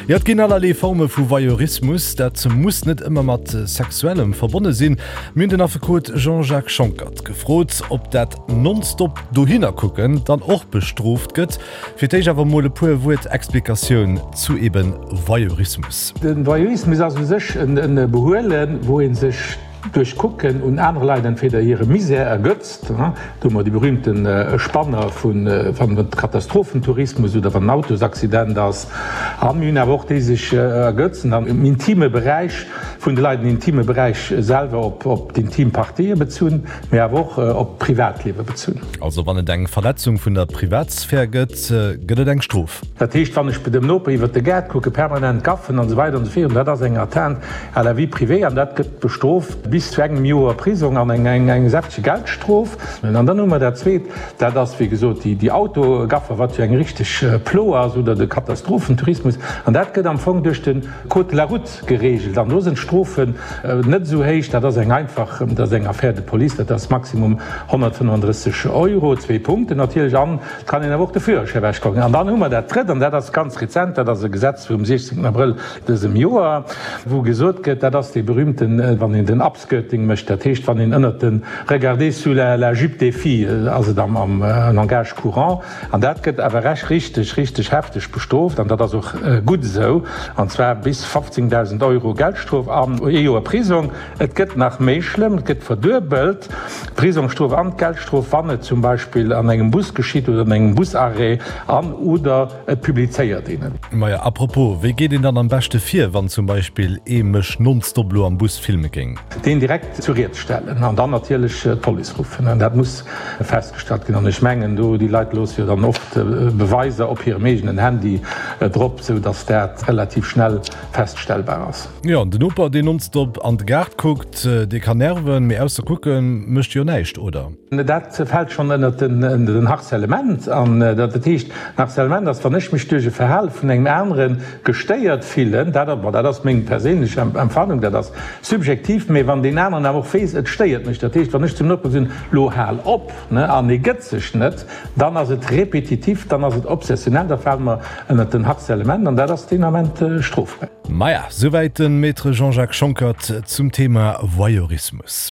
Jo, et ginn allerlee Forme vu Voyeurismus. Dat muss net ëmmer mat Sexuellem verbonne sinn. Mir hunn den Affekot Jean-Jacques Schonckert gefrot, ob dat nonstop dohinner kucken dann och bestrooft gëtt. Fir d'éischt awer mol e puer Wuert Explikatioun zu eben Voyeurismus. De Voyeurismus ass u sech e Behuelen, wou ee sech duerch Kucken un anere Leit entweder hire Misär ergötzt, do hu mer déi berühmte Spanner vu wann et Katastrophentourismus oder wann en Autosaccident ass, a mir hunn awer och déi sech ergötzen am intime Beräich vun de Leit, den intime Beräich selwer op d'intim Partië bezunn, mee awer och op d'Privatliewe bezunn. Also wann et eng Verletzung vun der Privatsphär gëtt, gëtt et eng Strof. Dat heescht, wann ech bei dem Noper iwwert de Gaart kucken, permanent gaffen an esou weider an esou virun, dat ass eng Atteinte à la vie privée an dat gëtt bestrooft bis zu engem Joer Prisong an eng säftege Geldstrof. An dann hu mer dat Zweet, dat ass wéi gesot déi Autogaffer, wat jo eng richteg Plo ass, oder de Katastrophentourismus. An dat gëtt am Fong duerch de Code de la route geregelt an do sinn d'Strofen net esou héich. Dat ass eng einfach, dat ass eng Affaire de police, dat ass maximum 135 Euro, zwee Punkten natierlech an et kann een awer och de Führerschäi ewechkucken. An dann hu mer dat Drëtt, an dat ass ganz rezent, dat ass e Gesetz vum 16 Abrëll dësem Joer, wou gesot gëtt, dat ass dee berühmten, wann een den Upskirting mécht, dat heescht, wann een ënnert de Regarder sous la jupe des filles ass et am Langage courant, an dat gëtt awer rech richteg, richteg hefteg bestrooft, an dat ass och gutt esou, an zwar bis 15.000 Euro Geldstrof an ee Joer Prisong. Et gëtt nach méi schlëmm, et gëtt verduebelt, d'Prisongstrof an d'Geldstrof, wann et zum Beispill an engem Bus geschitt oder an engem Busarrêt an oder et publizéiert een et. Maja, à propos, wéi geet een dann am beschte vir, wann zum Beispill ee mech nonstop lo am Bus filme géing? Deen direkt zu Ried stellen an dann natierlech d'Police ruffen. Dat muss festgestallt ginn. An ech mengen, do, déi Leit loosse jo dann oft Beweiser op hirem eegenen Handy drop, sou datt dat relativ schnell feststellbar ass. Jo, an den Noper, deen nonstop an de Gaart kuckt, dee kann nerven, mee ausser kucken mécht e jo näischt, oder? Dat fält schonn ënnert den Harcèlement. An dat heescht, den Harcèlement ass, wann ech mech duerch e Verhale vun engem anere gestéiert fillen, dat, bon, dat ass meng perséinlech Empfannung, dat ass subjektiv, mee wann deen aneren awer och weess, et stéiert mech, dat heescht, wann ech zum Noper soen, lo hal op, ne, an e gëtt sech net, dann ass et repetitiv, dann ass et obsessionell, da fale mer ënnert den Harcèlement an dat ass deen Ament strofbar. Maja, souwäit de Maître Jean-Jacques Schonckert zum Thema Voyeurismus.